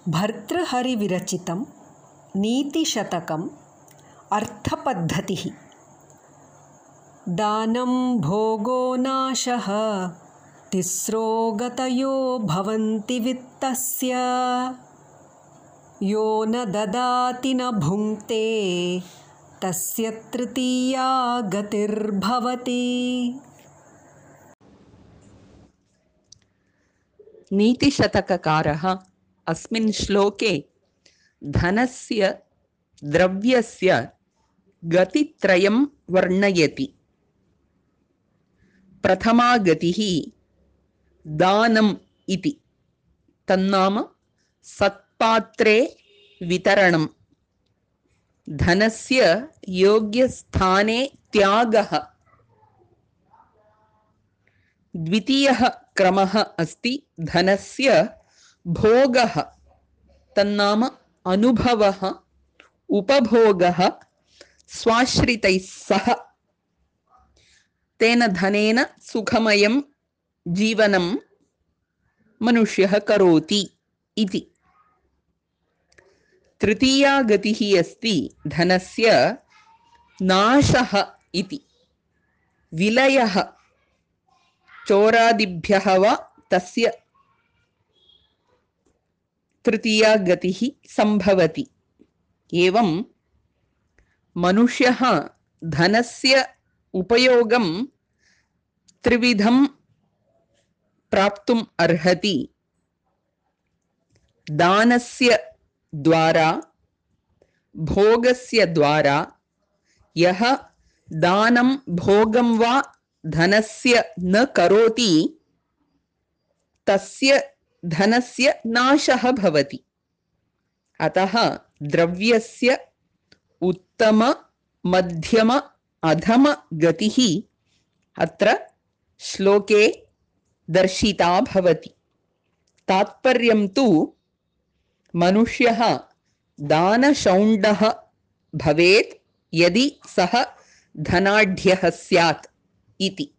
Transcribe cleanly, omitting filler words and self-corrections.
भर्तृहरिविरचितं नीतिशतकम् अर्थपद्धतिः। दानं भोगो नाशः तिस्रो गतयो भवन्ति वित्तस्य। यो न ददाति न भुङ्क्ते तस्य तृतीया गतिर्भवति। नीतिशतककारः अस्मिन् श्लोके धनस्य द्रव्यस्य गतित्रयं वर्णयति। प्रथमा गतिः दानम् इति, तन्नाम सत्पात्रे वितरणं, धनस्य योग्यस्थाने त्यागः। द्वितीयः क्रमः अस्ति धनस्य भोगः, तन्नाम अनुभवः, उपभोगः स्वाश्रितैः सह। तेन धनेन सुखमयं जीवनं मनुष्यः करोति इति। तृतीया गतिः अस्ति धनस्य नाशः इति, विलयः, चोरादिभ्यः वा तस्य तृतीया गतिः संभवति। एवं मनुष्यः धनस्य उपयोगं त्रिविधं प्राप्तुम् अर्हति। दानस्य द्वारा, भोगस्य द्वारा। यः दानं भोगं वा धनस्य न करोति तस्य धनस्य नाशः भवति। अतः द्रव्यस्य उत्तम, मध्यम, अधम गतिः अत्र श्लोके दर्शिता भवति। तात्पर्यं तु मनुष्यः दानशौण्डः भवेत् यदि सः धनाढ्यः स्यात् इति।